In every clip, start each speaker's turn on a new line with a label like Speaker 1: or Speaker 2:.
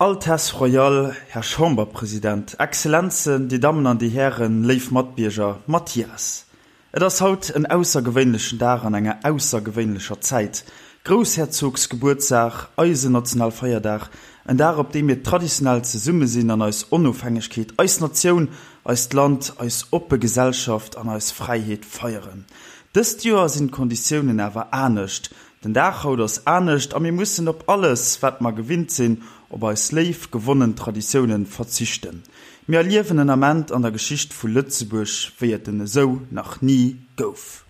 Speaker 1: Altesse Royale, Här Chamberpresident, Exzellenzen, Dir Dammen an Dir Hären, léif Matbierger, Mathias, et ass haut en aussergewéinlechen Dag an enger aussergewéinlecher Zäit, Groussherzogsgebuertsdag, eisen Nationalfeierdag, en Dag op deem mir traditionell zesumme sinn an eis Onofhängegkeet, eis Natioun, eist Land, eis oppe Gesellschaft an eis Fräiheet feieren. Dëst Joer sinn d'Konditiounen awer anescht, Den Dag haut ass anescht a mir mussen op alles, wat mer gewinnt sinn, op eis léif gewonnen Traditiounen verzichten. Mir erliewen en Ament an der Geschicht vu Lëtzebuerg, wéi et en esou nach ni gouf.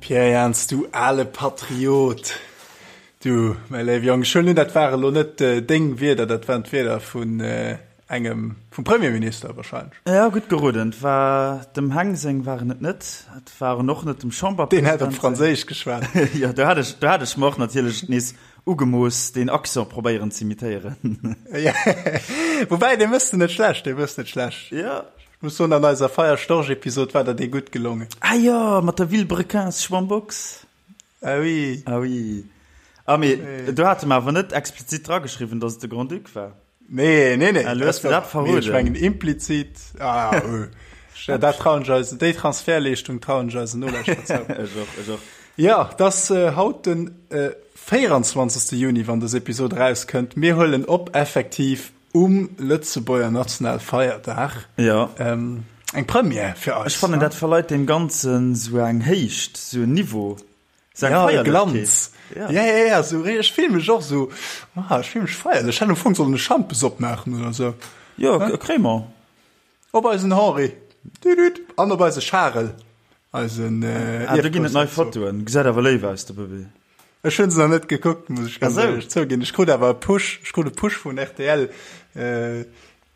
Speaker 2: Pierre Jans, du ale Patriot, du, mäi léiwe Jong, ech huelen un, dat ware lo net deng Wierder, dat waren d'Wierder vun engem, vum Premierminister wahrscheinlech.
Speaker 1: Jo, gutt geroden. Et war dem Heng seng waren et net. Et waren och net dem
Speaker 2: Chamberpresident seng. Deen hätt op Franséisch geschwat.
Speaker 1: Jo, do hat ech, do hat ech mer och natierlech nees ugemooss, deen Accent probéieren z'imitéieren.
Speaker 2: Woubäi, dee méchs de net schlecht, dee méchs net schlecht.
Speaker 1: Jo.
Speaker 2: Ech muss soen, an eiser Feierstorch-Episod war der dee gutt gelongen.
Speaker 1: Ah jo, mat der Vilebrequins Schwammbox.
Speaker 2: Ah oui.
Speaker 1: Ah oui. Ah mee do hate mer awer net explizit drageschriwwen, datt et de Grand-Duc war.
Speaker 2: Nee, nee, nee.
Speaker 1: Ah, lo hues de dat verroden.
Speaker 2: Ech mengen implizit. Ah, oh. Dat trauen ech eis, déi Transfertleeschtung trauen ech eisen Nolauschterer
Speaker 1: zou. Ech och, ech och.
Speaker 2: Jo, 't ass haut den 24. Juni, wann dës Episod erauskënnt. Mir huelen op effektiv Um Lëtzebuerger Nationalfeierdag.
Speaker 1: Jo.
Speaker 2: Eng Première fir eis.
Speaker 1: Ech fannen, dat verleit deem Ganzen sou eng Héicht, sou en Niveau, sou eng
Speaker 2: Ja, e
Speaker 1: Feierlechkeet.
Speaker 2: Glanz.
Speaker 1: Ja.
Speaker 2: Ja, ja, ja, sou ri-, ech fill mech och sou, ah, ech fill mech feierlech. Ech hätt am Fong sollen e Schampes opmaachen oder sou.
Speaker 1: Jo, e Crémant.
Speaker 2: Op eisen Henri. Düdüt. An op eise Charel, eisen
Speaker 1: Ah, do ginn et nei
Speaker 2: Ierfgroussherzog.
Speaker 1: Fotoen. Gesäit awer léif aus, de Bëbee.
Speaker 2: Ech hunn se nach net gekuckt, muss ech ganz
Speaker 1: Ach sou.
Speaker 2: éierlech zouginn. Ech krut awer e Push, ech krut e Push vun rtl. Äh,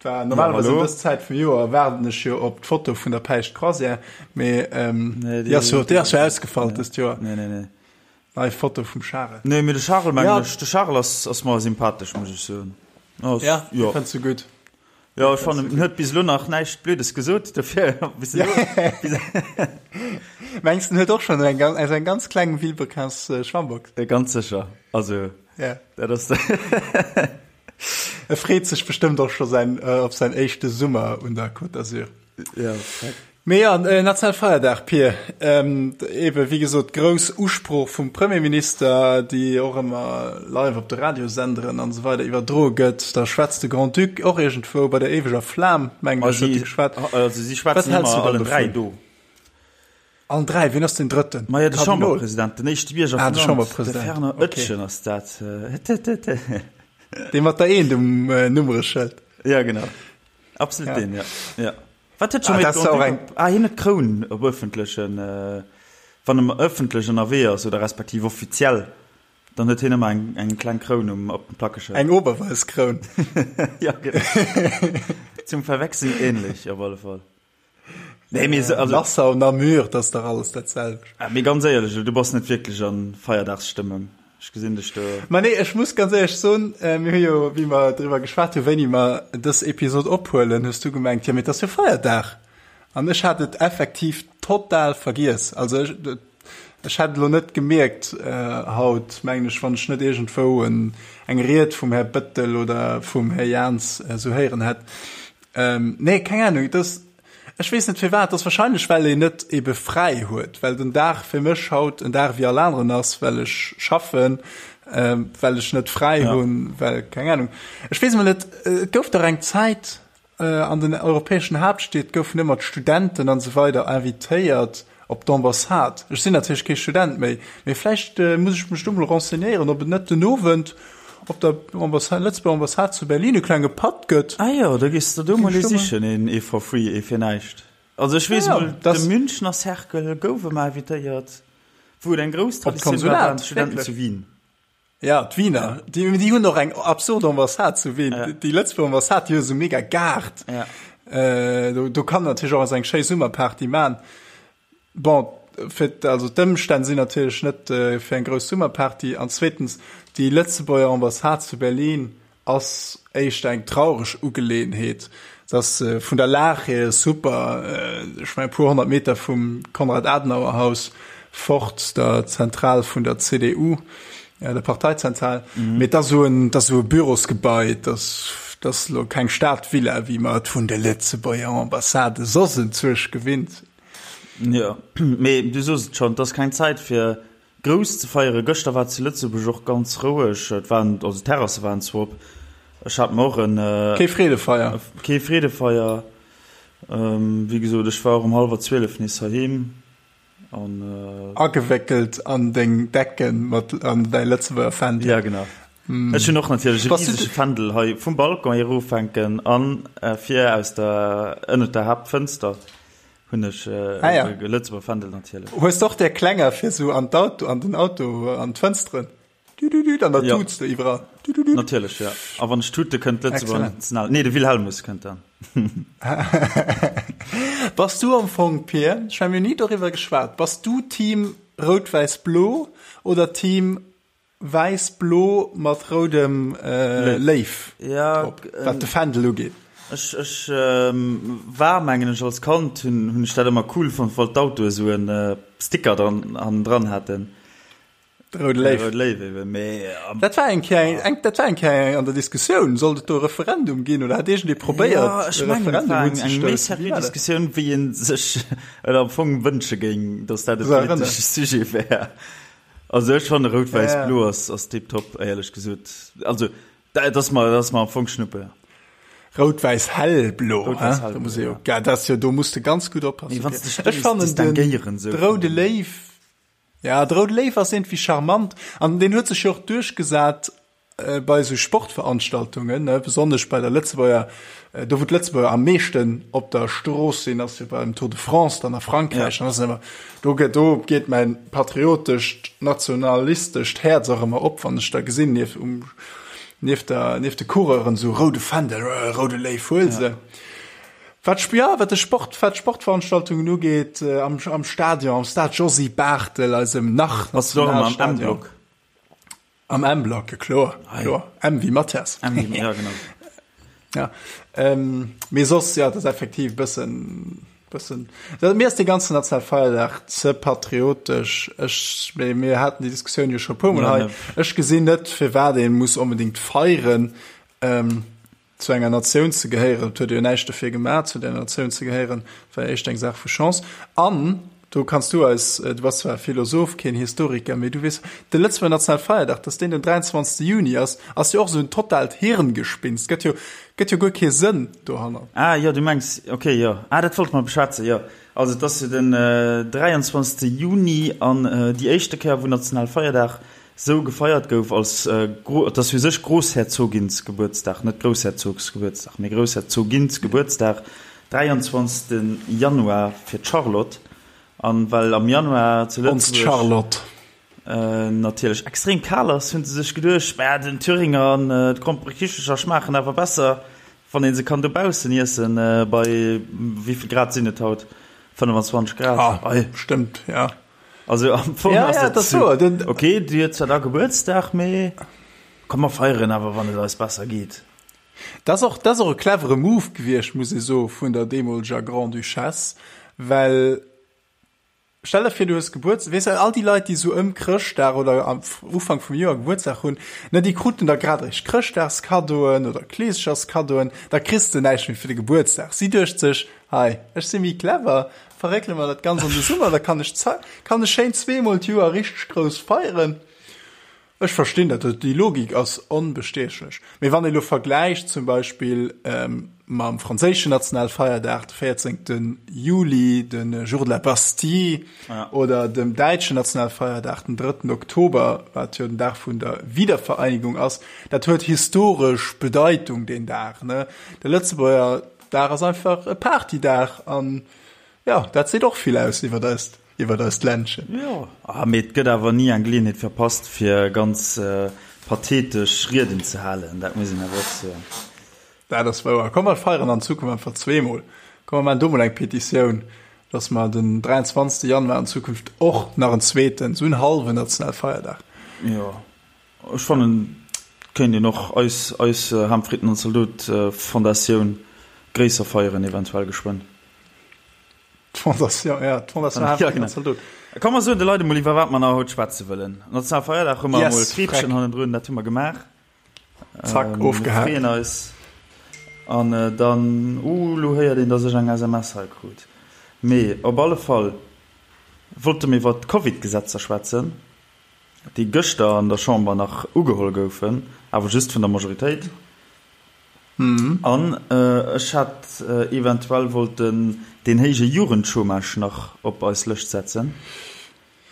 Speaker 2: war
Speaker 1: Ja,
Speaker 2: normalerweis ëm
Speaker 1: hallo.
Speaker 2: dës Zäit vum Joer waarden ech jo op d'Foto vun der Päischt Croisière, mee ähm,
Speaker 1: Nee,
Speaker 2: déi ass jo,
Speaker 1: déi,
Speaker 2: déi ass jo ausgefall
Speaker 1: nee,
Speaker 2: dëst Joer.
Speaker 1: nee, nee, nee.
Speaker 2: Nei Foto vum Charel.
Speaker 1: Nee, mee de Charel mengen
Speaker 2: Ja.
Speaker 1: ech, de Charel ass, ass mer sympathesch, muss ech soen. Ass,
Speaker 2: Ja,
Speaker 1: jo.
Speaker 2: fënns du gutt?
Speaker 1: Jo, ech fannen, en huet bis elo nach näischt Blödes gesot, dofir bis elo.
Speaker 2: Mengs en huet och schonn eng ganz, eng ganz kleng Vilebrequins Schwammbox?
Speaker 1: Ganz sécher, also
Speaker 2: Ja.
Speaker 1: dat ass.
Speaker 2: E freet sech bestëmmt och scho säin, op säin éischte Summer un der Côte d'Azur.
Speaker 1: Ja, exakt.
Speaker 2: Mee jo, Nationalfeierdag, Pir. Eebe wéi gesot, grouss Usprooch vum Premierminister, déi och ëmmer live op de Radiosenderen an esou weider iwwerdroe gëtt. Da schwätzt de Grand-Duc och iergendwou bei der éiweger Flam, mengen ech, huet e geschwat.
Speaker 1: Also si schwätzen ëmmer allen 3 do.
Speaker 2: Allen 3? Wien ass deen Drëtten?
Speaker 1: Majo, de Chamberpresident, den éischte Bierger
Speaker 2: vum Land,
Speaker 1: de Fernand Oetjen ass dat.
Speaker 2: Dee mat der Eent um Nummereschëld.
Speaker 1: Ja, genau. Absolut deen, ja. Wat huet
Speaker 2: Ah,
Speaker 1: scho méi
Speaker 2: dat ass och eng.
Speaker 1: Ah, hien huet d'Kroun op ëffentlechen, wann e ëffentlech ënnerwee ass oder respektiv offiziell, dann huet hien ëmmer eng, eng kleng Kroun um, op dem Plackeschëld.
Speaker 2: Eng Oberweiss-Kroun.
Speaker 1: Ja, genau. Zum Verwechseln ähnlich, op alle Fall. Nee, mee, also.
Speaker 2: Nassau, Namur, dat ass dach alles dat selwecht.
Speaker 1: Ah, mee ganz éierlech, du bass net wierklech a Feierdagsstëmmung. Ech gesinn dech do.
Speaker 2: Ma nee, ech muss ganz éierlech soen, mir hu jo, wéi mer driwwer geschwat hu wéini mer dës Episod ophuelen, hues du gemengt, jo mee et ass jo Feierdag. An ech hat et effektiv total vergiess. Also ech, ech hätt et elo net gemierkt haut, mengen ech, wann ech net iergendwou en, eng Ried vum Här Bettel oder vum Här Jans esou héieren hätt. Nee, keng Ahnung, et ass, Ech weess net firwat, ass wahrscheinlech well een net ebe fräi huet, well den Dag fir mech haut en Dag wéi all aneren ass, well ech schaffen, well ech net fräi hunn, well keng Ahnung. Ech weess emol net, et gouf dach eng Zäit an den europäeschen Haaptstied goufen ëmmer d'Studenten an esou weider invitéiert op d'Ambassade. Ech sinn natierlech kee Student méi, mee vläicht muss ech mech do mol renseignéieren, ob et net den Owend op der Ambassade, Lëtzebuerger Ambassade zu Berlin e klenge Patt gëtt.
Speaker 1: Ah jo, da gees de do mol ee sichen, een ee for free, ee fir näischt. Also ech weess mol, de Münchner Cercle gouf ëmmer invitéiert, wou et eng grouss Traditioun war, waren d'Studenten zu Wien.
Speaker 2: Ja, d'Wiener, déi, déi hunn och eng absurd Ambassade zu Wien.
Speaker 1: Ja.
Speaker 2: Déi Lëtzebuerger Ambassade, déi hu sou mega Gaart.
Speaker 1: Ja.
Speaker 2: Äh, do, do kann natierlech och eng schéi Summerparty man. Bon. fir, also d'Ëmstänn sinn natierlech net fir eng grouss Summerparty an zweetens, déi Lëtzebuerger Ambassade zu Berlin ass éischter eng traureg Ugeleeënheet. Et ass vun der Lag hier super, ech mengen e puer 100 Meter vum Konrad-Adenauer-Haus fort, der Zentral vun der CDU, der Parteizentral. Mee et ass esou en, et ass esou e Bürosgebai, et ass, et ass elo keng Stadvilla, wéi mer et vun de Lëtzebuerger Ambassade soss enzwousch gewinnt sinn.
Speaker 1: Jo, mee du soos et schonn, et ass keng Zäit fir grouss ze feieren. Gëschter war et zu Lëtzebuerg och ganz roueg. Et waren, also d'Terrasse waren zwar op. Ech hat mer och en.
Speaker 2: Kee Freedefeier?
Speaker 1: Kee Freedefeier. Wéi gesot, ech war och um hallwer 12 nees heiheem
Speaker 2: an. Agewéckelt an deng Decken mat an däi Lëtzebuerger Fändel.
Speaker 1: Ja, genau. Ech hunn och natierlech e risege Fändel hei vum Balcon erofhänken an vir aus der, ënnert der Haaptfënster. Hunn ech äh, ah, ja. Lëtzebuerger Fändel natierlech.
Speaker 2: Hues doch der Klenger fir so an d'Auto an den Auto an d'Fënsteren. Du, du, du, an der ja. Tuts du iwwerall.
Speaker 1: Du, du, du. Natierlech ja. A wann ech tute kënnt Lëtzebuerger National. Nee, de Wilhelmus kënnt dann.
Speaker 2: Bass du am Fong Pier? Ech mein, mir hunn ni doriwwer geschwat. Bass du Team Rout-Wäiss-Blo oder Team Wäiss-blo mat roudem Léif drop, wat de Fändel ugeet.
Speaker 1: Ech ech war mengen ech als Kand hunn hunn ech dat ëmmer cool fonnt, wann d'Autoe sou en Sticker dran hannendran haten.
Speaker 2: De roude Léif.
Speaker 1: De roude Léif eben, mee.
Speaker 2: Dat war eng Kéier eng dat war eng Kéier an der Diskussioun, sollt et do e Referendum ginn oder hat iergendee probéiert
Speaker 1: e
Speaker 2: Referendum unzestoussen?
Speaker 1: Jo, ech mengen et war eng eng méi seriö Diskussioun wéi ee sech et am Fong wënsche géing, datt dat e politesche Sujet wär. Also ech fanne rout-wäiss-blo ass ass tiptop, éierlech gesot. Also dat ass mer dat ass mer am Fong Schnuppe.
Speaker 2: Rout-wäiss-hellblo, hein? Da muss ee jo, ja, dat ass jo, do muss de ganz gutt oppassen.
Speaker 1: Mee wann s de dech do misst distinguéieren,
Speaker 2: esou. De roude Léiw, ja, de roude Léiw ass iergendwéi charmant an deen huet sech jo och duerchgesat Bei esou Sportveranstaltungen, besonnesch bei der Lëtzebuerger, do wou d'Lëtzebuerger am meeschten op der Strooss sinn, ass jo beim Tour de France dann a Frankräich, dann ass et ëmmer, do gëtt, do geet mäin patriotescht, nationalistescht Häerz och ëmmer op, wann ech da gesinn, nieft um, nieft der, nieft de Coureuren esou roude Fändel, roude Léiw, huel se. Wat, jo, wat de Sport, wat d'Sportveranstaltungen ugeet, am, am Stadion, am Stade Josy Barthel, eisem nach
Speaker 1: Nationalstadion.
Speaker 2: Am M-Block, jo kloer, kloer. M wéi Mathias.
Speaker 1: M wéi, ja genau.
Speaker 2: Ja, ähm, mee soss, ja, dat ass effektiv bëssen, bëssen. Dat, mir ass dee ganzen Nationalfeierdag ze patriotesch. Ech, mee mir haten déi Diskussioun jo scho e puermol hei. Ech gesinn net, firwat ee muss onbedéngt feieren. Ähm, Zu enger Natioun ze gehéieren, et huet ee jo näischt dofir gemaach, zu där Natioun ze gehéieren, war éischt eng Saach vu Chance. An do kanns du eis, du bass zwar Philosoph, keen Historiker, mee du weess, de Lëtzebuerger Nationalfeierdag, dass deen den 23. Juni ass, ass jo och esou en totaalt Hirngespinst, gëtt jo, gëtt jo guer kee Sënn dohannert.
Speaker 1: Ah jo, du mengs, ok, jo. Ah, dat wollte mer beschwätzen, jo. Also et ass jo den 23. Juni an déi éischte Kéier, wou Nationalfeierdag Sou gefeiert gouf als et ass u sech Grossherzoginsgebuertsdag, net Groussherzogsgebuertsdag, mee Groussherzoginsgebuertsdag, 23. Januar fir d'Charlotte. An well am Januar zu
Speaker 2: Lëtzebuerg
Speaker 1: natierlech extrem kal ass, hunn se sech geduecht, mä den Thüringer an d'Gromperekichelcher schmaachen awer besser, wann ee se kann dobaussen iessen bei, wéivill Grad sinn et haut, 25 Grad?
Speaker 2: Ah, stëmmt, ja.
Speaker 1: Also am Fong
Speaker 2: ja,
Speaker 1: ass
Speaker 2: ja,
Speaker 1: dat
Speaker 2: so, den,
Speaker 1: okay, du huet zwar da Gebuertsdag, mee komm mer feieren awer wann et eis besser geet.
Speaker 2: Dat ass och, dat ass och e clevere Move gewiescht, muss ee soe vun der deemoleger Grande-Duchesse, well stell der vir, du hues Gebuerts-, weess de, all déi Leit, déi esou ëm Chrëschtdag oder am Ufank vum Joer Gebuertsdag hunn, ne, déi kruten da grad eréischt Chrëschtdagskaddoen oder Kleescheschskaddoen, da kriss de näischt méi fir de Gebuertsdag. Si duecht sech, Hei, ech si méi clever, verréckele mer dat Ganzt an de Summer, da kann ech kann ech schéin zweemol d'Joer richteg grouss feieren. Ech verstinn dat, déi Logik ass onbestiechlech. Mee wann ee lo vergläicht zum Beispill mam franséischen Nationalfeierdag, de 14. Juli, de Jour de la Bastille, oder dem däitschen Nationalfeierdag, den 3. Oktober, wat jo den Dag vun der Wiedervereinigung ass, dat huet historesch Bedeitung, deen Dag, ne? De Lëtzebuerger Dag ass einfach e Partydag an jo, dat seet och vill aus iwwert eist, iwwert eist Ländchen.
Speaker 1: Jo, ah, mee et gëtt awer ni eng Geleeënheet verpasst, fir ganz pathetesch Rieden ze halen, dat muss een awer och soen.
Speaker 2: Dat ass wouer. Komm, mer feieren an Zukunft einfach zweemol. Komm, mer maachen do mol eng Petitioun. Dass mer den 23. Januar an Zukunft och nach en zweeten, esou en hallwen nationale Feierdag.
Speaker 1: Jo, ech fannen, et kéint een och eis, eis Ham Fritten an Zaldot Fondatioun gréisser feieren, eventuell geschwënn.
Speaker 2: D'Fondation, ja, d'Fondation Ham Fritten an Zaldot.
Speaker 1: Komm mer soen de Leit emol iwwer wat mer nach haut schwätze wëllen. Nationale Feierdag hu mer emol Kreepchen hannendrun, dat hu mer gemaach.
Speaker 2: Zack, ofgehaakt.
Speaker 1: Mir freeën eis. An dann, uh, lo héiert een, dass ech eng SMS hei krut. Mee op alle Fall wollte mir iwwer d'Covid-Gesetzer schwätzen, déi gëschter an der Chamber nach ugeholl goufen, awer just vun der Majoritéit. An ech hätt eventuell wollten deen héije Jugendchômage nach op eis Lëscht setzen.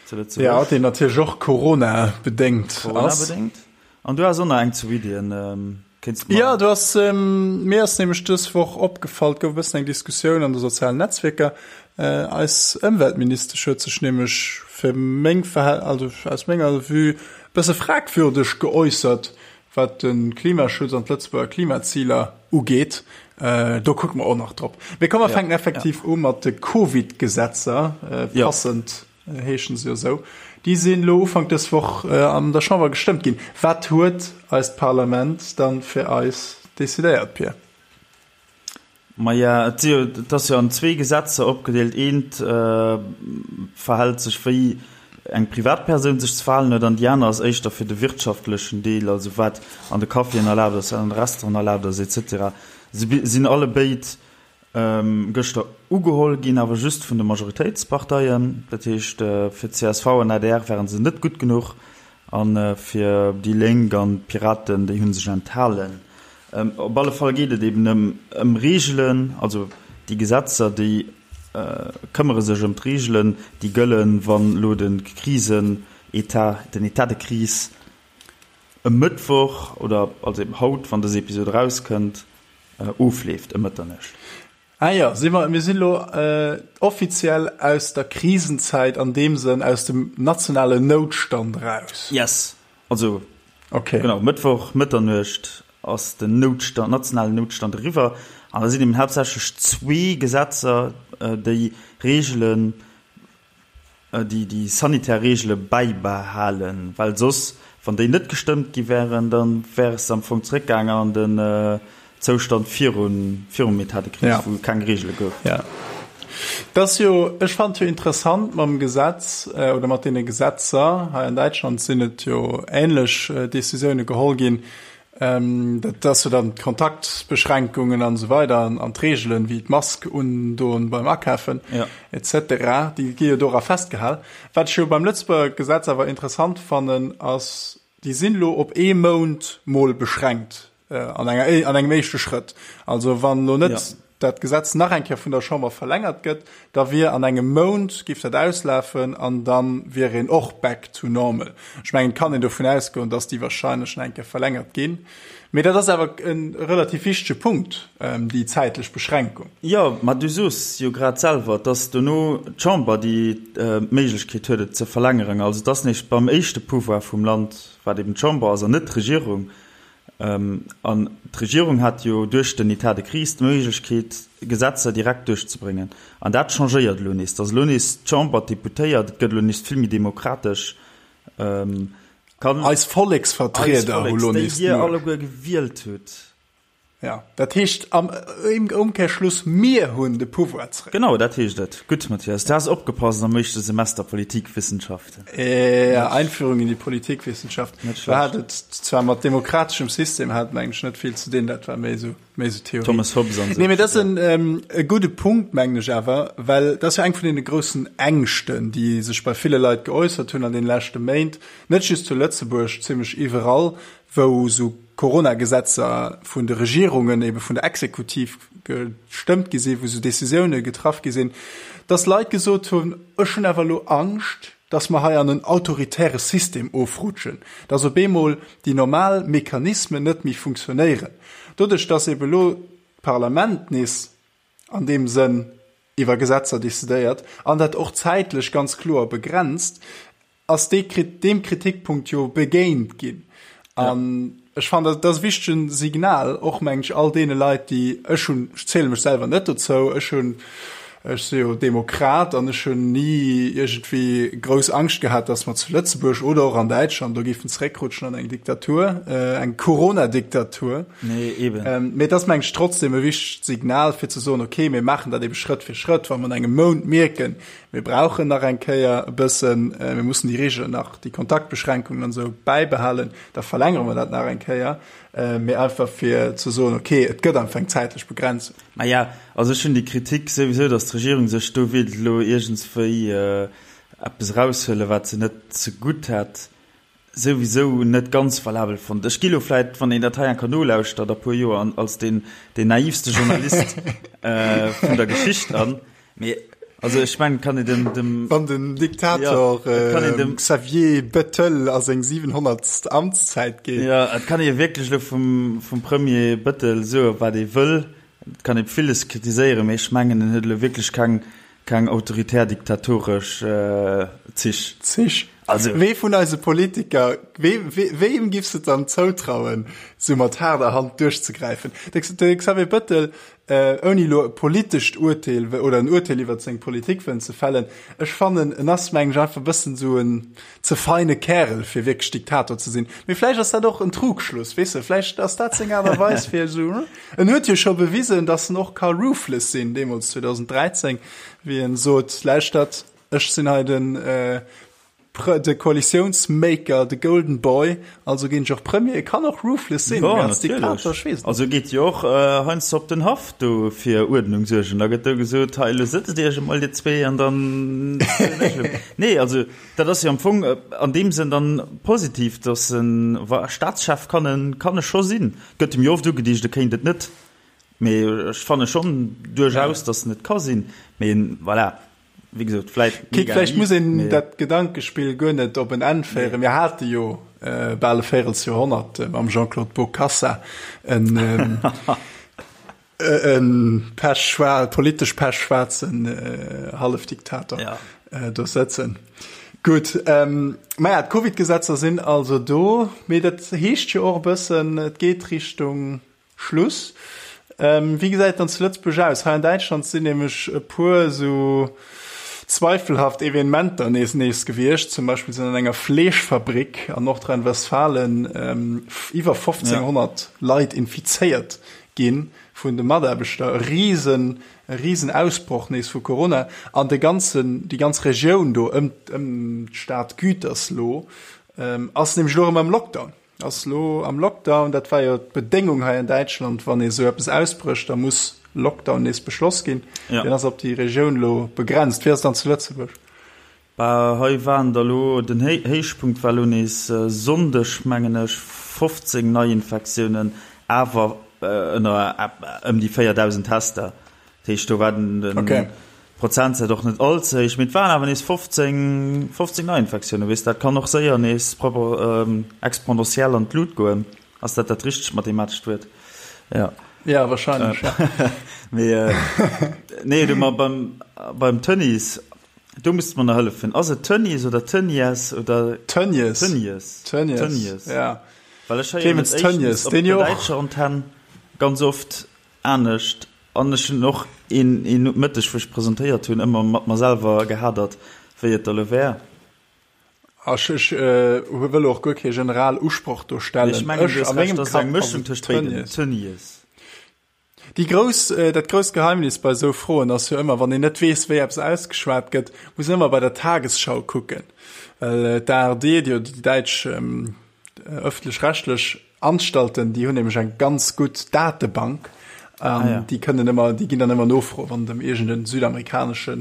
Speaker 2: Zu Lëtzebuerg. Ja, deen natierlech och Corona-bedéngt ass.
Speaker 1: Corona-bedéngt. An du has och nach eng zu Iddien. Kéints
Speaker 2: de mer. Ja, du ass, mir ass nämlech dës Woch opgefall, et gouf e bëssen eng Diskussioun an de sozialen Netzwierker. Eis Ëmweltministesch huet sech nämlech fir meng Verhält-, also aus menger Vue, e bësse fragwürdeg geäussert, wat de Klimaschutz an d'Lëtzebuerger Klimaziler ugeet. Do kucke mer och nach drop. Mee komm, mer fänken effektiv u mat de Covid-Gesetzer, passend heeschen se jo esou. Déi sinn elo Ufank dës Woch an der Chamber gestëmmt ginn. Wat huet eist Parlament dann fir eis decidéiert, Pir?
Speaker 1: Maja, et si jo, et ass jo an zwee Gesetzer opgedeelt. Eent verhält sech wéi eng Privatpersoun sech ze verhalen huet an déi aner ass éischter fir de wirtschaftlechen Deel, also wat an de Caféen erlaabt ass, wat an de Restauranten erlaabt ass et cetera. Se sinn allebéid gëschter ugeholl ginn, awer just vun de Majoritéitsparteien. Dat heescht, fir csv an adr ware se net gutt genuch a fir déi Lénk an d'Piraten, déi hu sech enthalen. Op alle Fall geet et eben ëm Reegelen, also déi Gesetzer, déi këmmere sech ëm d'Reegelen, déi gëllen, wann elo de Krisenetat, den État de crise e Mëttwoch oder also eben haut, wann dës Episod erauskënnt, ofleeft ëm Mëtternuecht.
Speaker 2: Ah jo, si mer, mir sinn elo offiziell aus der Krisenzäit, an deem Sënn aus dem nationalen Noutstand eraus.
Speaker 1: Yes, also okay. Genau, Mëttwoch Mëtternuecht ass den Noutstand, nationalen Noutstand eriwwer an da sinn eben haaptsächlech zwee Gesetzer, déi Reegelen, déi déi sanitär Reegele bäibehalen, well soss, wann déi net gestëmmt gi wären, da wär es am Fong zréckgaangen an den Zoustand virun, virum État de crise, wou keng Reegele gouf.
Speaker 2: Jo. Dat ass jo, ech fannen et jo interessant mam Gesetz oder mat deene Gesetzer, hei an Däitschland sinn et jo änlech Décisioune geholl ginn, Dat ass jo dann d'Kontaktbeschränkungen an esou weider an d'Reegelen, wéi d'Mask undoen beim Akafen et cetera, déi gi jo dora festgehal. Wat ech jo beim Lëtzebuerger Gesetz awer interessant fannen, ass, déi sinn elo op ee Mount mol beschränkt an enger, an engem éischte Schrëtt. Also wann elo net dat Gesetz nach eng Kéier vun der Chamber verlängert gëtt, da wier an engem Mount, géif dat auslafen an da wier een och back to normal. Ech mengen, et kann een dovun ausgoen, dass déi wahrscheinlech nach eng Kéier verlängert ginn. Mee dat ass awer e relativ wichtege Punkt, déi zäitlech Beschränkung.
Speaker 1: Jo, mä du soos jo grad selwer, et ass dono d'Chamber, déi d'Méiglechkeet huet, et ze verlängeren. Also et ass nees beim éischte Pouvoir vum Land, wat eben d'Chamber ass an net d'Regierung. An d'Regierung hat jo duerch den État de crise d'Méiglechkeet, Gesetzer direkt duerchzebréngen. An dat changéiert elo nees, dass elo nees d'Chamber, d'Deputéiert, et gëtt elo nees vill méi demokratesch,
Speaker 2: kann. Eis Volleksvertrieder hu lo
Speaker 1: nees d'Muecht. Déi Dir alleguer gewielt hutt.
Speaker 2: Ja, dat heescht am Ëmkehrschluss, mir hunn de Pouvoir
Speaker 1: zréck. Genau, dat heescht et. Gutt, Mathias, du has opgepasst am éischte Semester Politikwissenschaften.
Speaker 2: Ja, Einführung in die Politikwissenschaft. Net schlecht. Hat et zwar mat demokrateschem System hat mengen ech net vill ze dinn, dat war méi esou, méi esou Theorie.
Speaker 1: Thomas Hobbes
Speaker 2: an esou. Nee, mee dat ass en, e gudde Punkt, mengen ech awer, well dat ass jo eng vun deene groussen Ängschten, déi sech bei ville Leit geäussert hunn an deene leschte Méint, net just zu Lëtzebuerg, zimlech iwwerall, wou esou Corona-Gesetzer vun de Regierungen, ebe vun der Exekutiv gestëmmt gi sinn, wou esou Décisioune getraff gi sinn, dass Leit gesot hunn, ech hunn awer elo Angscht, dass mer hei an en autoritäre System ofrutschen, dass op eemol déi normal Mechanismen net méi funktionéieren. Doduerch, dass ebe elo d'Parlament nees an deem Sënn iwwer Gesetzer decidéiert an dat och zäitlech ganz kloer begrenzt, ass dee deem Kritikpunkt jo begéint ginn. An ech fannen, dat ass e wichtegen Signal, och, mengen ech, all deene Leit, déi, ech hunn, ech ziele mech selwer net dozou, ech hunn. Ech si jo Demokrat an ech hunn ni iergendwéi grouss Angscht gehat, datt mer zu Lëtzebuerg oder och an Däitschland do géifen zeréckrutschen an eng Diktatur, eng Corona-Diktatur.
Speaker 1: Nee, eben.
Speaker 2: Mee et ass, meng ech, trotzdem e wichtegt Signal, fir ze soen, okay, mir maachen dat ebe Schrëtt fir Schrëtt. Wa mer an engem Mount mierken, mir brauchen nach eng Kéier e bëssen, mir mussen déi Reegelen nach, déi Kontaktbeschränkungen an esou bäibehalen, da verlängere mer dat nach eng Kéier. Mee einfach fir ze soen, okay, et gëtt einfach eng zäitlech Begrenzung.
Speaker 1: Maja, also ech hunn déi Kritik souwisou, datt d'Regierung sech do wéilt elo iergendswéi eppes eraushuelen, wat se net zegutt hätt, souwisou net ganz valabel fonnt. Ech gi lo vläit, wann een dat hei enker nolauschtert a puer Joer, als deen naivste Journalist vun der Geschicht an. Mee also ech mengen, kann een dem, dem
Speaker 2: Wann den Diktator ja, kann een dem Xavier Bettel a seng 700. Amtszäit
Speaker 1: geet. Ja, et kann ee wierklech elo vum, vum Premier Bettel soe wat ee wëll. Et kann ee villes kritiséieren, mee ech mengen, en huet elo wierklech keng, keng autoritär diktatoresch äh, Zich.
Speaker 2: Zich. Also. Wee vun eise Politiker, wee, wee, weem giffs de dann zoutrauen, sou mat haarder Hand duerchzegräifen? De, de Xavier Bettel Ouni elo e politescht Urteel oder en Urteel iwwert seng Politik wëllen ze fällen, ech fannen, en ass, mengen ech, einfach e bëssen esou en ze feine Kärel, fir wierklech Diktator ze sinn. Mee vläicht ass dat och en Trugschluss, weess de, vläicht ass dat seng Aart a Weis, fir esou, en huet jo scho bewisen, datt en och ka ruthless sinn, deemools 2013, wéi en sot, Lauschtert, ech sinn hei den, De Koalitiounsmaker, de Golden Boy, also ginn ech och Premier. E kann och ruthless sinn,
Speaker 1: mee als Diktator, ech weess et net. Also geet jo och heiansdo op den Haff do fir Uerdnung suergen. Da gëtt do gesot, hei elo sëtzt Iech emol dir zwee an dann zielen ech elo. Nee, also dat ass jo am Fong an deem Sënn dann positiv, datt en, wa Staatschef kann en, kann e scho sinn. Gëtt em jo oft ugedicht, e kéint et net, mee ech fanne schonn duerchaus, datt en et ka sinn. Mee voilà. Wéi gesot, vläit
Speaker 2: mega Vläicht muss een dat Gedankespill guer net op en Enn féieren. Mir hate jo bal e Véirelsjoerhonnert mam Jean-Claude Bokassa en e pechschwaar, politesch pechschwaarzen Hallefdiktator do sëtzen. Gutt, maja, d'Covid-Gesetzer sinn also do, mee dat heescht jo och e bëssen, et geet Richtung Schluss. Wéi gesäit et dann zu Lëtzebuerg aus? Hei an Däitschland sinn nämlech e puer esou zweifelhaft Evenementer nees nees gewiescht. Zum Beispill sinn an enger Fleeschfabrik an Nordrhein-Westfalen iwwer 1500 Leit infizéiert gi vun de Mataarbechter. E risen, e risen Ausbroch nees vu Corona an de ganzen, déi ganz Regioun do ëm d'Stad Gütersloh ass nämlech elo erëm am Lockdown. Ass lo am Lockdown, dat war jo d'Bedéngung hei an Däitschland, wann ee sou eppes ausbrécht, da muss Lockdown nees beschloss ginn. Ja. Deen ass op déi Regioun lo begrenzt. Wéi ass et dann zu Lëtzebuerg?
Speaker 1: Bah, hei waren der lo, den Héichpunkt war lo nees Sonndeg, mengen ech, 15 Neiinfektiounen, awer ënner ëm déi 4.000 Tester. Dat heescht, do war den, den okay. Prozentsaz och net all ze héich, mee et waren awer nees 15, 15 Neiinfektiounen. Weess, dat kann och séier nees propper ähm, exponentiell an d'Lut goen. Ass dat dat richtegt mathematescht Wuert?
Speaker 2: Ja. Ja, wahrscheinlech.
Speaker 1: Äh, ja. mee, äh, nee, du, ma beim, beim Tönnies, do muss du mer nach hëllefen. Ass et Tönnies oder Tönnies oder
Speaker 2: Tönnies.
Speaker 1: Tönnies.
Speaker 2: Tönnies. Tönnies.
Speaker 1: Ja. Well ech héieren
Speaker 2: et éischtens op der
Speaker 1: däitscher Antenn ganz oft Anescht, an ech hunn och een een Mëtteg, wou ech presentéiert hunn, ëmmer mat mer selwer gehadert, wéi et da lo wär.
Speaker 2: Ech ech wëll och guer kee general Usproch do stellen.
Speaker 1: Ech mengen, du hues Recht, dat ass eng Mëschung tëscht béiden, Tönnies.
Speaker 2: Déi grouss, dat grousst Geheimnis bei esou Froen ass jo ëmmer, wann een net weess, wéi eppes ausgeschwat gëtt, muss een ëmmer bei der Tagesschau kucken, well d'ARD, déi däitsch ëffentlech-rechtlech Anstalten, déi hunn nämlech eng ganz gutt Datebank an ah, ja. déi kënnen ëmmer, déi ginn dann ëmmer nofroen, wann et ëm iergend en südamerikanesche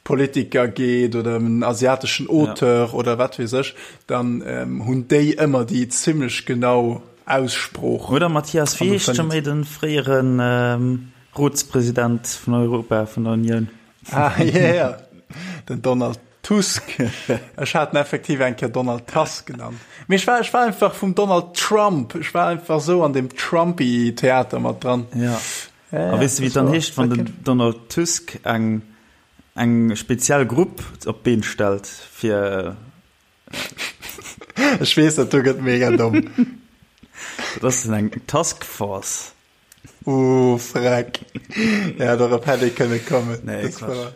Speaker 2: Politiker geet oder ëm en asiateschen Auteur ja. oder wat weess ech, dann ähm, hunn déi ëmmer déi zimmlech genau Aussprooch.
Speaker 1: Oder Mathias, wéi heescht scho méi den fréieren ähm, Rotspresident vun Europa, vun der Unioun?
Speaker 2: Ah, yeah, den Donald Tusk. Ech hat en effektiv eng Kéier Donald Tusk genannt. Mee ech war, ech war einfach vum Donald Trump, ech war einfach sou an dem Trumpy-Theater mat dran.
Speaker 1: Ja. Ja, A weess de, wéi et dann heescht, wann den Donald Tusk eng, eng speziell Grupp op d'Been stellt, fir.
Speaker 2: Ech weess, dat do gëtt mega domm.
Speaker 1: Dat ass dann eng Task Force.
Speaker 2: Uh, freck. Ja, dorop hätt ee kënne kommen.
Speaker 1: Nee,
Speaker 2: Das
Speaker 1: Quatsch.
Speaker 2: war-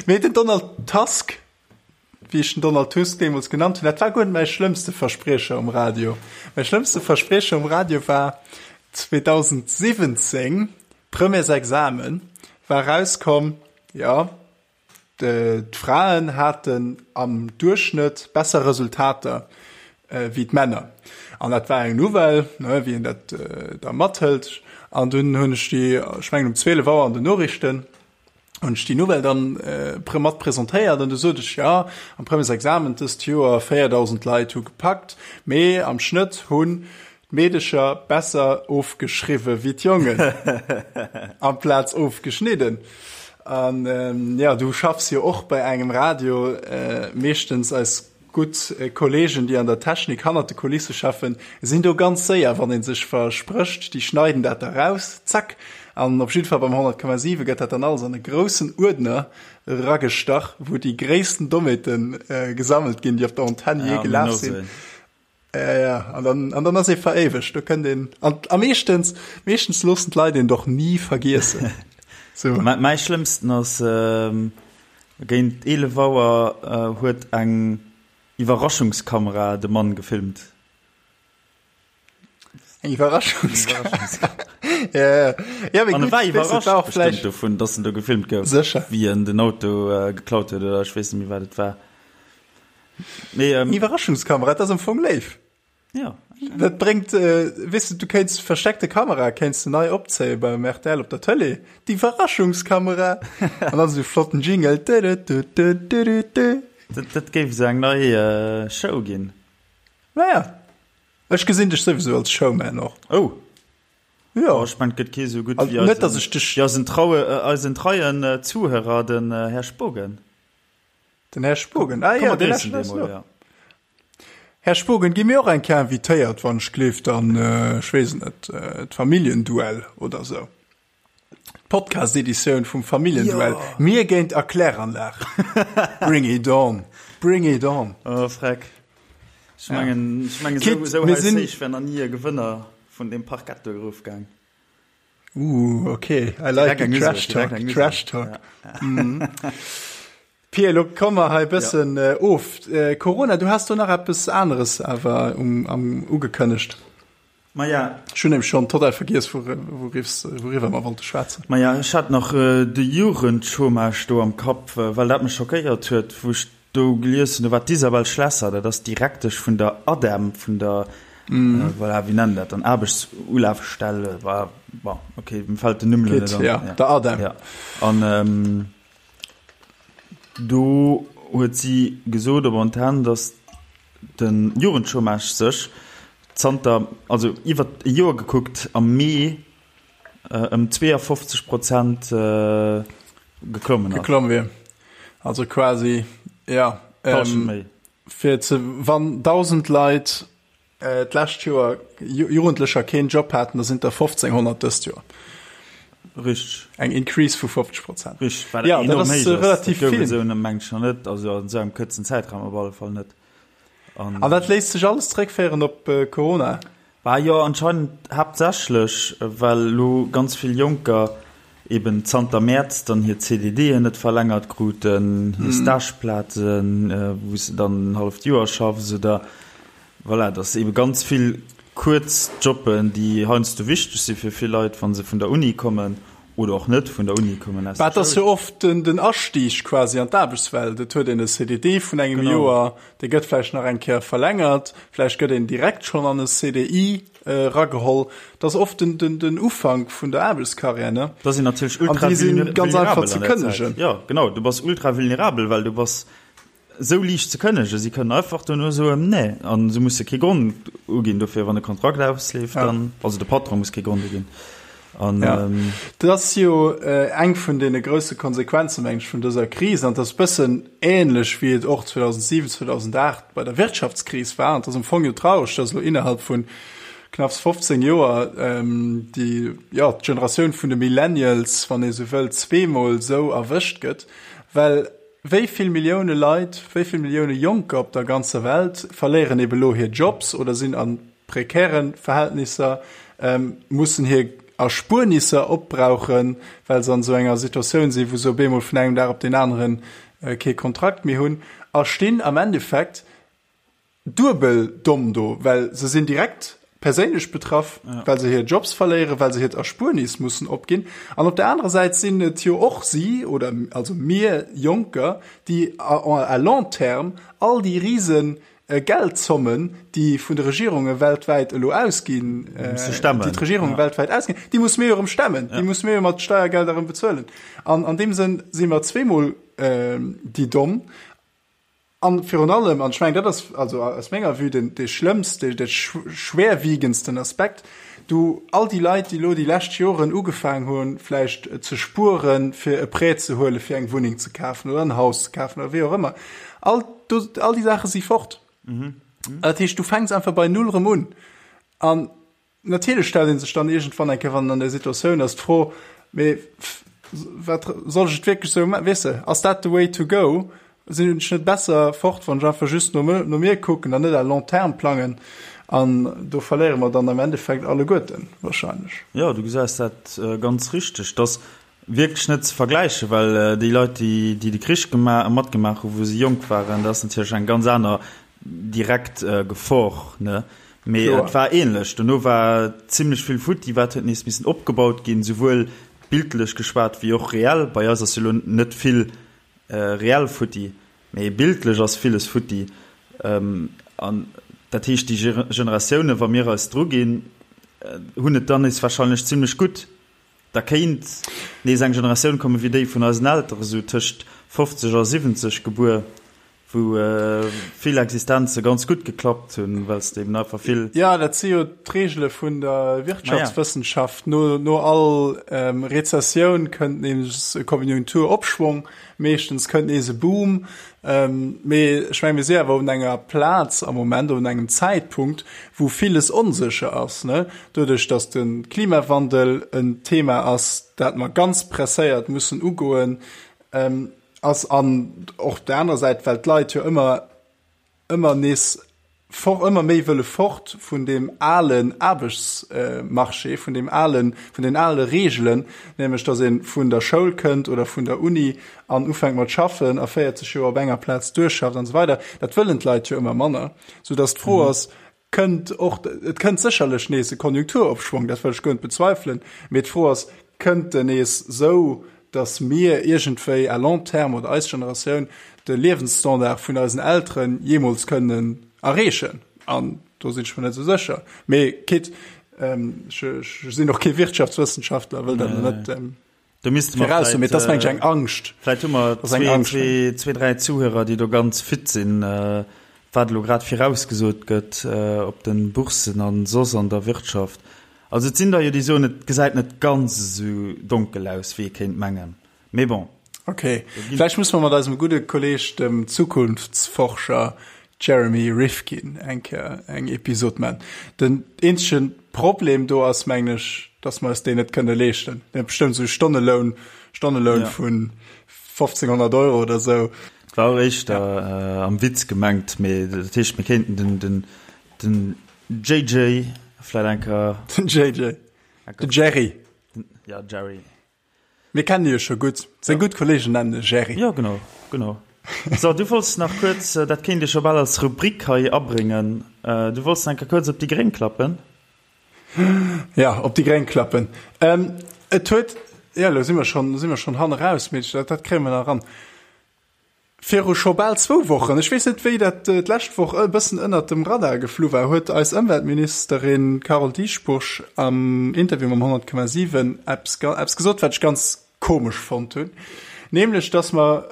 Speaker 2: Mee den Donald Tusk, wéi ech den Donald Tusk deemools genannt hunn, dat war guer net mäi schlëmmste Verspriecher um Radio. Mäi schlëmmste Verspriecher um Radio war 2017, Premièresexamen, war erauskomm, jo, D'Fraen haten am Duerchschnëtt besser Resultater wéi d'Männer. An dat war eng Nouvelle, wéi een dat da mathëlt. An dunn hunn ech déi, ech mengen um 12 Auer an den Noriichten, hunn ech déi Nouvelle dann mat presentéiert. An du sot ech, jo, am Premièresexamen dëst Joer 4.000 Leit hu gepackt, mee am Schnëtt hunn D'Meedecher besser ofgeschriwwe wéi d'Jongen, amplaz ofgeschnidden. An jo, du schaffs jo och bei engem Radio, meeschtens eis gutt Kollegen, déi an der Technik hannert de Kulisse schaffen, sinn do ganz séier, wann ee sech versprécht, déi schneiden dat da raus, zack. An op jidde Fall beim 100,7 gëtt dat dann alles an e groussen Uerdner eragestach, wou déi gréissten Dommheete gesammelt ginn, déi op der Antenn jee gelaf sinn. Ja, ja, an dann, an dann ass ee veréiwegt. Do kënnt een, an, a meeschtens, meeschtens loossen d'Leit een doch ni vergiessen.
Speaker 1: So. Mä, mäi schlëmmsten ass, ähm, géint 11 Auer äh, huet eng Iwwerraschungskamera de Mann gefilmt.
Speaker 2: Eng Iwwerraschungskamera. Ja, ja. Ja, mee
Speaker 1: An e
Speaker 2: gutt,
Speaker 1: war
Speaker 2: weess du,
Speaker 1: iwwerrascht
Speaker 2: war och
Speaker 1: bestimmt
Speaker 2: vläicht
Speaker 1: dovun, dass en do gefilmt gouf,
Speaker 2: Sécher.
Speaker 1: wéi en den Auto äh, geklaut huet, oder ech weess net méi, wat et war.
Speaker 2: Nee, ähm, Iwwerraschungskamera, dat ass am Fong léif.
Speaker 1: Ja.
Speaker 2: Dat bréngt, äh, weess du, du kéints versteckte Kamera kéints du nei opzéie beim RTL op der Tëlee. D'Iwwerraschungskamera. An dann esou flotten Jingle.
Speaker 1: Du-du-du-du-du-du-du. Dat, dat géif esou eng nei äh, Show ginn.
Speaker 2: Naja. Ech gesinn dech souwisou als Showman och.
Speaker 1: Oh.
Speaker 2: Jo.
Speaker 1: Oh, ech mengen, et gëtt kee sou gutt
Speaker 2: Also,
Speaker 1: wéi
Speaker 2: net, dass
Speaker 1: eisen,
Speaker 2: ech dech.
Speaker 1: wéi eisen traue, äh, eisen treien äh, Zuhörer, den äh, Här Spogen.
Speaker 2: Den Här Spogen, ah
Speaker 1: Komm,
Speaker 2: jo,
Speaker 1: mer
Speaker 2: dee
Speaker 1: gréissen
Speaker 2: lauschtert
Speaker 1: dee
Speaker 2: eis
Speaker 1: mol,
Speaker 2: no.
Speaker 1: ja.
Speaker 2: Här Spogen, gi mir och eng Kéier invitéiert, wann ech gleeft, an, ech weess et net, d'Familljenduell oder esou. D'Podcast-Editioun vum Familljenduell,
Speaker 1: Jo!
Speaker 2: Mir géint Erkläranlag. Bring it on! Bring it on!
Speaker 1: Oh, freck. Ech
Speaker 2: Ja.
Speaker 1: mengen, ech mengen, esou,
Speaker 2: Kit,
Speaker 1: esou
Speaker 2: mir
Speaker 1: hei
Speaker 2: sinn.
Speaker 1: héich wär nach ni e Gewënner vun deem Parkett do erofgaang.
Speaker 2: Ooh, okay, I like
Speaker 1: Direkt
Speaker 2: the
Speaker 1: eng
Speaker 2: Trash
Speaker 1: Usag, direkt
Speaker 2: Talk,
Speaker 1: eng Usag.
Speaker 2: Trash Talk.
Speaker 1: Ja.
Speaker 2: Mm. Pia, lo komme mer hei
Speaker 1: Ja.
Speaker 2: bëssen äh, of. Äh, Corona, du has do nach eppes aneres awer um, am, ugekënnegt.
Speaker 1: Maja.
Speaker 2: Ech hunn nämlech schonn total vergiess, wouriwwer wouriwwer mer wollte schwätzen.
Speaker 1: Maja, ech hat nach äh, de Jugendchômage do am Kapp, äh, well dat mech schockéiert huet, wou ech Do gelies hunn, do war d'Isabel Schlesser, dat ass d'Direktesch vun der ADEM, vun der, voilà, wéi nennen dat dann, Aarbechtsulafstell, voilà, bon, okay, mir fält den Numm elo net an.
Speaker 2: Ja, der ADEM.
Speaker 1: Ja, an do huet si gesot op Antenn, datt de Jugendchômage sech zanter, also iwwer e Joer gekuckt, am Mee ëm 52 Prozent geklommen ass.
Speaker 2: Geklomm wier. Also quasi, ja.
Speaker 1: Ähm, méi.
Speaker 2: Fir ze, wann 1.000 Leit äh, d'lescht Joer Jugendlecher keen Job haten, da sinn der 1.500 dëst Joer.
Speaker 1: Richteg.
Speaker 2: Eng Increase vu 50 Prozent.
Speaker 1: Richteg, wat
Speaker 2: ja,
Speaker 1: enorm
Speaker 2: dat ass
Speaker 1: héich ass.
Speaker 2: relativ
Speaker 1: Dat gouf
Speaker 2: vill.
Speaker 1: et esou mengen ech nach net, also an esou engem kuerzen Zäitraum op alle Fall net.
Speaker 2: An, An dat léisst sech alles zréckféieren op äh, Corona?
Speaker 1: Bah jo, anscheinend haaptsächlech, well elo ganz vill Jonker eben zanter Mäerz dann hir CDDen net verlängert kruten, hir Stageplazen, wou s de dann en halleft Joer schaffs oder voilà, dass ebe ganz vill kuerz Jobben, déi heiansdo wichteg si fir vill Leit, wa se vun der Uni kommen oder och net vun der Uni kommen, aus
Speaker 2: Bah,
Speaker 1: der
Speaker 2: et ass
Speaker 1: Schoul.
Speaker 2: jo oft den Astieg quasi an d'Aarbechtswelt. Et huet een e CDD vun engem
Speaker 1: Genau.
Speaker 2: Joer, dee gëtt vläicht nach eng Kéier verlängert, vläicht gëtt een direkt schonn an e CDI erageholl. Et ass oft den, den, den Ufank vun der Aarbechtskarriär, ne?
Speaker 1: Da sinn natierlech
Speaker 2: An
Speaker 1: ultra
Speaker 2: déi si
Speaker 1: vulnerabel
Speaker 2: ganz
Speaker 1: an
Speaker 2: einfach
Speaker 1: der
Speaker 2: ze
Speaker 1: Zäit.
Speaker 2: kënnegen.
Speaker 1: Jo, genau, du bass ultra vulnerabel, well du bass Esou liicht ze kënnegen. Si kënnen einfach duerno soen, nee, a se musse kee Grond uginn dofir, wann e Kontrakt ausleeft, dann, also de Patron muss kee Grond uginn. An,
Speaker 2: Ja, dat ass jo eng vun deene grousse Konsequenzen, meng ech, vun dëser Kris. An et ass e bëssen ähnlech, wéi et och 2007, 2008 bei der Wirtschaftskris war. An et ass am Fong jo traureg, dass elo innerhalb vu knapps 15 Joer déi, jo, d'Generatioun vun de Millennials, wann ee sou wëll, zweemol esou erwëscht gëtt, well Wéi vill Millioune Leit, wéi vill Millioune Jonker op der ganzer Welt verléieren ebe lo hir Jobs oder sinn a prekäre Verhältnisser, mussen hir. Erspuernisser opbrauchen, well se an esou enger Situatioun sinn, wou se op eemol vun engem Dag op deen aneren kee Kontrakt méi hunn a stinn am Endeffekt duebel domm do, well se sinn direkt perséinlech betraff, well se hir Jobs verléieren, well se hiert Erspuernis mussen opginn. An op der anerer Säit sinn et jo och si, oder also mir Jonker, déi à long terme all déi rise Geldzommen, déi vun de Regierunge weltwäit elo ausginn, déi d'Regierunge weltwäit ausginn, déi musse mir jo erëm stemmen, déi musse mir jo mat Steiergelder erëm bezuelen. An an deem Sënn si mer zweemol déi Domm. An virun allem, an ech mengen, dat ass also aus menger Vue den dee schlëmmst, dee schwerwiegendsten Aspekt, du all déi Leit, déi elo déi lescht Joren ugefaang hunn, vläicht ze spueren, fir e Prêt ze huelen, fir eng Wunneng ze kafen oder en Haus ze kafen oder wéi och ëmmer, all do, all déi Saache si fort. Mhm. Dat heescht, du fänks einfach bei Null erëm un. An natierlech stellt ee sech dann iergendwann eng Kéier, wann en an där Situatioun ass, d'Fro, mee wat soll ech et wierklech esou maachen? Weess de, ass dat the way to go? Sinn ech net besser fort, wann ech einfach just no, no mir kucken an net à long terme plangen? An do verléiere mer dann am Endeffekt alleguerten wahrscheinlech.
Speaker 1: Jo, du gesäis dat ganz richteg, dass Wierklech net ze vergläichen, well déi Leit, déi déi de Krich matgemaach hunn, wou se jonk waren, dat ass natierlech eng ganz aner direkt Gefor, ne? Mee et war ähnlech. Dono war zimlech vill futti, wat huet nees missen opgebaut ginn, souwuel bildlech geschwat wéi och reell. Bei eis ass jo elo net vill reell futti, mee bildlech ass villes futti. An dat heescht, déi Generatiounen, wa mir eis druginn, hunn et dann nees wahrscheinlech zimlech gutt. Da kéint nees eng Generatioun kommen, wéi déi vun eisen Elteren, esou tëscht 50 a 70 gebuer, wou vill Existenze ganz gutt geklappt hunn, well s de eben einfach vill.
Speaker 2: Jo, dat si jo d'Reegele vun der Wirtschaftswëssenschaft. No, no all Rezessioun kënnt nees e Konjunkturopschwong, meeschtens kënnt nees e Boom. Mee ech menge mir si awer un enger Plaz am Moment, un engem Zäitpunkt, wou villes onsécher ass, ne? Doduerch, datt de Klimawandel en Thema ass, dat mer ganz presséiert mussen ugoen, ass an och op der anerer Säit, well d'Leit jo ëmmer, ëmmer nees for, ëmmer méi wëlle fort vun deem alen Aarbechtsmarché, vun deem alen, vun den ale Reegelen, nämlech datt ee vun der Schoul kënnt oder vun der Uni an ufänkt mat schaffen a 40 Joer op enger Plaz duerchschafft an esou weider. Dat wëllen d'Leit jo ëmmer manner, soudatt d'Fro ass, Kënnt och, et kënnt sécherlech nees e Konjunkturopschwong, dat wëll ech guer net bezweifelen, mee d'Fro ass, Kënnt en nees esou, datt mir iergendwéi à long terme oder eis Generatioun de Liewensstandard vun eisen Eltere jeemools kënnen erreechen? An do sinn ech mer net esou sécher. Mee quitte, ech sinn och kee Wirtschaftswëssenschaftler, wëll dat net
Speaker 1: Do misste mer
Speaker 2: viraus soen, mee et ass, meng ech, eng Angscht.
Speaker 1: Vläicht hu mer zwee, dräi Zuhörer, déi do ganz fit sinn, wat elo grad virausgesot gëtt op de Bourssen a soss an der Wirtschaft. Also et sinn der jo, déi soen, et gesäit net ganz esou donkel aus, wéi ee kéint mengen. Mee bon.
Speaker 2: Ok, vläicht musse mer mat eisem gudde Kolleeg, dem Zukunftsforscher Jeremy Rifkin, eng Kéier eng Episod man. Den eenzege Problem do ass, mengen ech, dass mer eis deen net kënne leeschten. Deen huet bestëmmt esou e Stonneloun, Stonneloun vu 1500 Euro oder esou.
Speaker 1: Et war och éischter am Witz gemengt, mee dat heescht, mir kéinten den, den, den JJ vläit eng Kéier.
Speaker 2: Den JJ. Den Jerry.
Speaker 1: Ja, Jerry.
Speaker 2: Mir kennen e jo scho gutt. Seng gutt Kolleegen nennen e Jerry.
Speaker 1: Jo, genau, genau. So, du wollts nach kuerz, dat kéint ee scho bal als Rubrik hei abréngen, du wollts nach eng Kéier kuerz op déi Gréng klappen.
Speaker 2: Ja, op déi Gréng klappen. Et huet, jo, elo si mer schonn, si mer schonn hanneraus, mee dat, dat kréie mer nach eran. Viru scho bal zwou Wochen, ech weess net wéi dat d'lescht Woch e bëssen ënnert dem Radar geflu war, huet eis Ëmweltministerin Carole Dieschbourg am Interview mam 100,7 eppes eppes gesot, wat ech ganz komesch fonnt hunn, nämlech datt mer,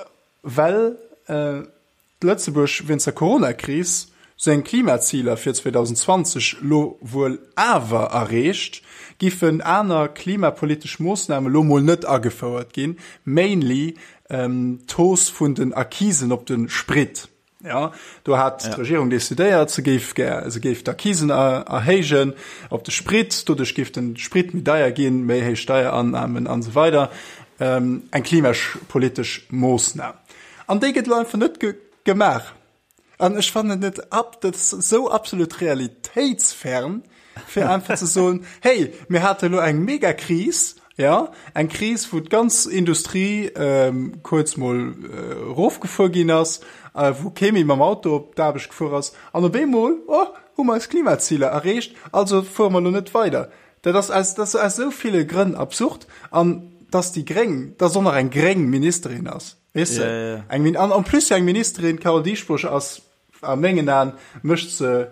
Speaker 2: well Lëtzebuerg wéinst der Coronakris seng Klimaziler fir 2020 lo wuel awer erreecht, giffen aner klimapolitesch Moossname lo mol net agefouert ginn, mainly d'Hausse vun den Accisen op de Sprit. Jo, do hat d'Regierung decidéiert, se géif gär, se géif d'Accisen erhéijen op de Sprit, doduerch géif de Sprit méi deier ginn, méi héich Steierannahmen an esou weider. Eng klimapolitesch Moossnam. An déi gëtt elo einfach net gemaach. An ech fannen et ab, dat ass esou absolut realitéitsfern. fir einfach ze soen, hey, mir hate lo eng mega Kris, ja, eng Kris, wou d'ganz Industrie ähm, kuerz mol äh, erofgefuer ginn ass, äh, wou kee méi mam Auto op d'Aarbecht gefuer ass, an op eemol, oh, hu mer eis Klimaziler erreecht, also fuere mer lo net weider. Dat ass aus, dat ass aus esou ville Grënn absurd, an dass déi Gréng, dass och nach eng gréng Ministerin ass, weess de,
Speaker 1: Ja, ja, ja.
Speaker 2: eng Min, an en plus eng Ministerin, d'Carole Dieschbourg ass a mengen Aen, mécht se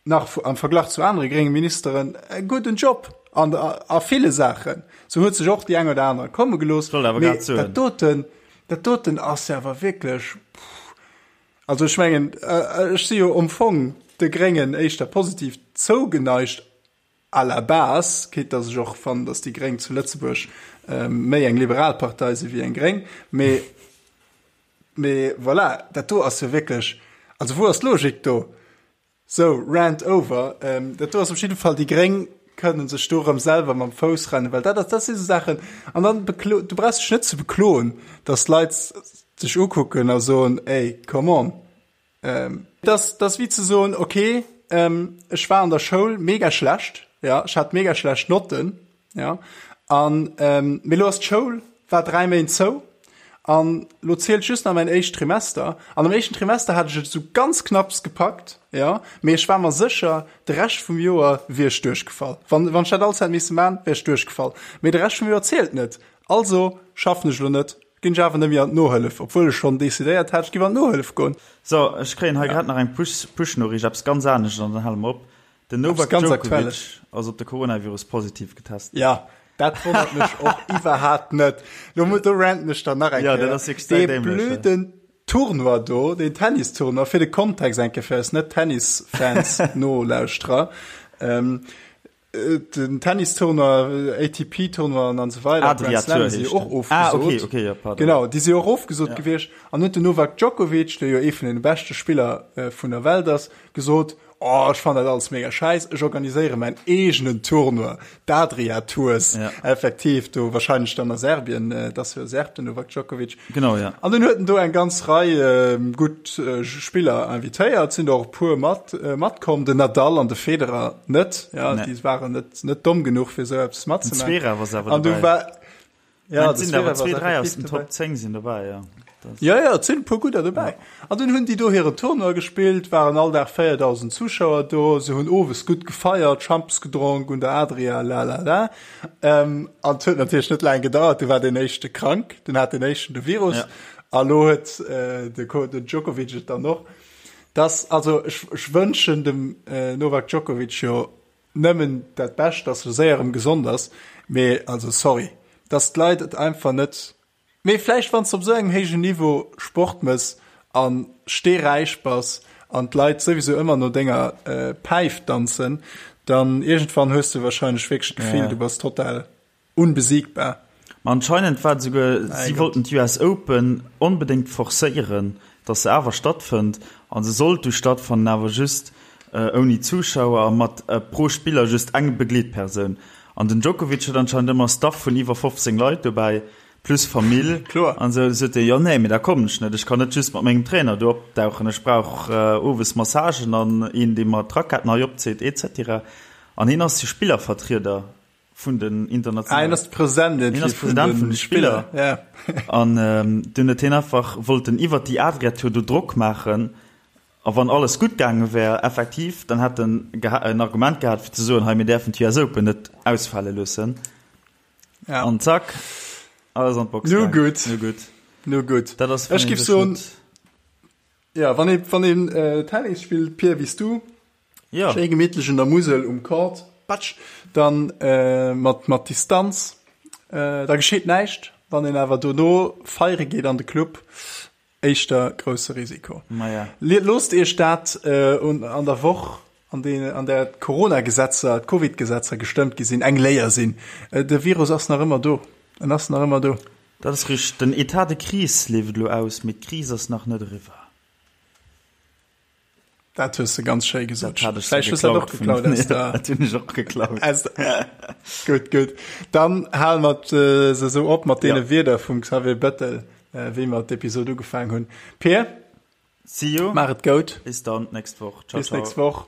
Speaker 2: nach am Verglach zu anere grénge Ministeren e gudden Job an a ville Saachen. Se huet sech och déi eng oder aner komme gelooss,
Speaker 1: Wollt awer
Speaker 2: mee
Speaker 1: grad soen.
Speaker 2: dat doten, dat doten ass jo awer wierklech, pff. Also ech mengen, ech si jo am Fong de Gréngen éischter positiv zougeneigt à la base, quitte datt ech och fannen, datt déi Gréng zu Lëtzebuerg méi eng liberal Partei si wéi eng gréng, mee mee voilà, dat do ass jo wierklech, also wou ass d'Logik do? Sou, Rant over. Dat do ass op jidde Fall, déi Gréng kënnen sech do erëm selwer mam Fouss rennen, well dat ass, dat si sou Saachen, an dann beklo, du brauchs dech net ze bekloen, datt d'Leit sech ukucken a soen, ey, come on. Dat ass, dat ass wéi ze soen, okay, ech war an der Schoul mega schlecht, ja, ech hat mega schlecht Notten, Ja an ähm, mee lo ass d'Schoul war 3 Méint zou an lo zielt just nach mäin éischt Trimester an am éischten Trimester hat ech et sou ganz knapps gepackt, ja, mee ech war mer sécher de Rescht vum Joer wier ech duerchgefall. Wann wann ech dat alles hätt misse man, wär ech duerchgefall. Mee de Rescht vum Joer zielt net, also schaffen ech lo net, ginn ech awer net méi an d'Nohëllef, obwuel ech schonn decidéiert hat, ech giff an d'Nohëllef goen.
Speaker 1: So, ech kréien hei grad nach eng Push Push-Noriicht, eppes ganz anescht an dann hale mer op. Den Novak Djokovic ass op de Coronavirus positiv getest.
Speaker 2: Ja, dat wonnert mech och iwwerhaapt net. Lo do ranten ech dann nach eng
Speaker 1: Kéier. Ja, dat ass wierklech dämlech.
Speaker 2: Dee blöden Tournoi do, deen Tennis-Tournoi, fir de Kontext eng Kéier fir eis Net-Tennis-Fans, Nolauschterer, ähm, den Tennis-Tournoi, ATP-Tournoien an esou weider,
Speaker 1: Adria
Speaker 2: Grand Slam
Speaker 1: Tour
Speaker 2: si
Speaker 1: heescht
Speaker 2: jo och
Speaker 1: den. Ah,
Speaker 2: ofgesot.
Speaker 1: okay, okay, ja, pardon.
Speaker 2: Genau, déi si och ofgesot
Speaker 1: Ja.
Speaker 2: gewiescht. An huet den Novak Djokovic, dee jo ee vun deene beschte Spiller vun der Welt ass, gesot, Oh, ech fannen dat alles mega schäiss, ech organiséiere mäin eegenen Tournoi, d'Adria Tours,
Speaker 1: Ja.
Speaker 2: effektiv, do wahrscheinlech dann a Serbien, et ass jo e Serb, den Novak Djokovic.
Speaker 1: Genau, ja.
Speaker 2: An dunn huet en do eng ganz Rei gutt Spiller invitéiert, sinn der och e puer mat matkomm, den Nadal an de Federer net, ja,
Speaker 1: Nee.
Speaker 2: déi waren net net domm genuch fir esou eppes
Speaker 1: Den
Speaker 2: matzemaachen.
Speaker 1: Zverev ass awer
Speaker 2: An du
Speaker 1: dobäi.
Speaker 2: war,
Speaker 1: Ja, et sinn awer zwee, dräi aus den Top 10 sinn dobäi, ja.
Speaker 2: Ja, ja, et sinn e puer gudder dobäi. An dunn hunn déi do hiren Tournoi gespillt, waren all Dag 4.000 Zuschauer do, se hunn owes gutt gefeiert, Schampes gedronk un der Adria, la la la. Ähm, an et huet natierlech net laang gedauert, du war deen éischte krank, dunn hat deen éischten de Virus
Speaker 1: Ja.
Speaker 2: a lo huet äh, de, Ko den Djokovic et dann och. Das, also ech, ech wënschen dem äh, Novak Djokovic jo Nëmmen dat Bescht, dass e séier erëm gesond ass, mee also sorry, dass d'Leit et einfach net, mee vläicht wann s de op esou engem héijen Niveau Sport mëss a steeräich bass an d'Leit souwisou ëmmer no denger Päif danzen, dann iergendwann hues de wahrscheinlech wierklech d'Gefill, du bass total Unbesiegbar.
Speaker 1: Ma anscheinend war et esouguer, si wollten d'US Open onbedéngt forcéieren, datt se awer stattfënnt. A se sollt du stattfannen, awer just ouni Zuschauer a mat pro Spiller just eng Begleetpersoun. An den Djokovic huet anscheinend ëmmer Staff vun iwwer 15 Leit dobäi, plus Famill.
Speaker 2: Kloer.
Speaker 1: An esou sot hie, jo nee, mee da kommen ech net, ech kann net just mat mengem Trainer do opdauchen, ech brauch owes Massagen an een, dee mer d'Raquetten hei opzitt, et cetera. An hien ass jo Spillervertrieder. vun den internationalen.
Speaker 2: Ah, hien ass de President
Speaker 1: Hien ass President vun de Spiller.
Speaker 2: Ja.
Speaker 1: An ähm, dunn huet hien einfach wollten iwwer déi Adria-Tour do Drock maachen. A wann alles gutt gaange wär, effektiv, dann hätt en en Argument gehat fir ze soen, hei mir däerfen d'US Open net ausfale loossen.
Speaker 2: Ja.
Speaker 1: An zack, alles an d'Box
Speaker 2: Nu
Speaker 1: gaang.
Speaker 2: gutt.
Speaker 1: Nu gutt.
Speaker 2: Nu gutt.
Speaker 1: Dat ass,
Speaker 2: Ech giff soen, ja, wann ee, wann een äh, Tennis spillt, Pierre, wéi s du,
Speaker 1: Ja.
Speaker 2: Schéi gemittlech un der Musel um Court, patsch, dann mat mat Distanz, da gescheet näischt. Wann een awer dono feiere geet an de Club, éischter grousse Risiko.
Speaker 1: Maja.
Speaker 2: Loosst iech dat un an der Woch, an dee an där d'Corona-Gesetzer, d'Covid-Gesetzer gestëmmt gi sinn, eng Léier sinn. De Virus ass nach ëmmer do. En ass nach ëmmer do.
Speaker 1: Dat ass richteg. Den Etat de crise leeft elo aus, mee d'Kris ass nach net eriwwer.
Speaker 2: Dat hues de ganz schéi gesot.
Speaker 1: Dat hat ech
Speaker 2: Vläicht hues dat och geklaut aus der.
Speaker 1: Dat hunn ech och geklaut.
Speaker 2: Aus der gutt, gutt. Dann hale mer äh, se sou op mat deene ja. Wierder vum Xavier Bettel, äh, wéi mer d'Episod ugefaangen hunn. Peer,
Speaker 1: See you.
Speaker 2: Maach et gout.
Speaker 1: Bis dann nächst Woch.
Speaker 2: Ciao, Bis nächst Woch.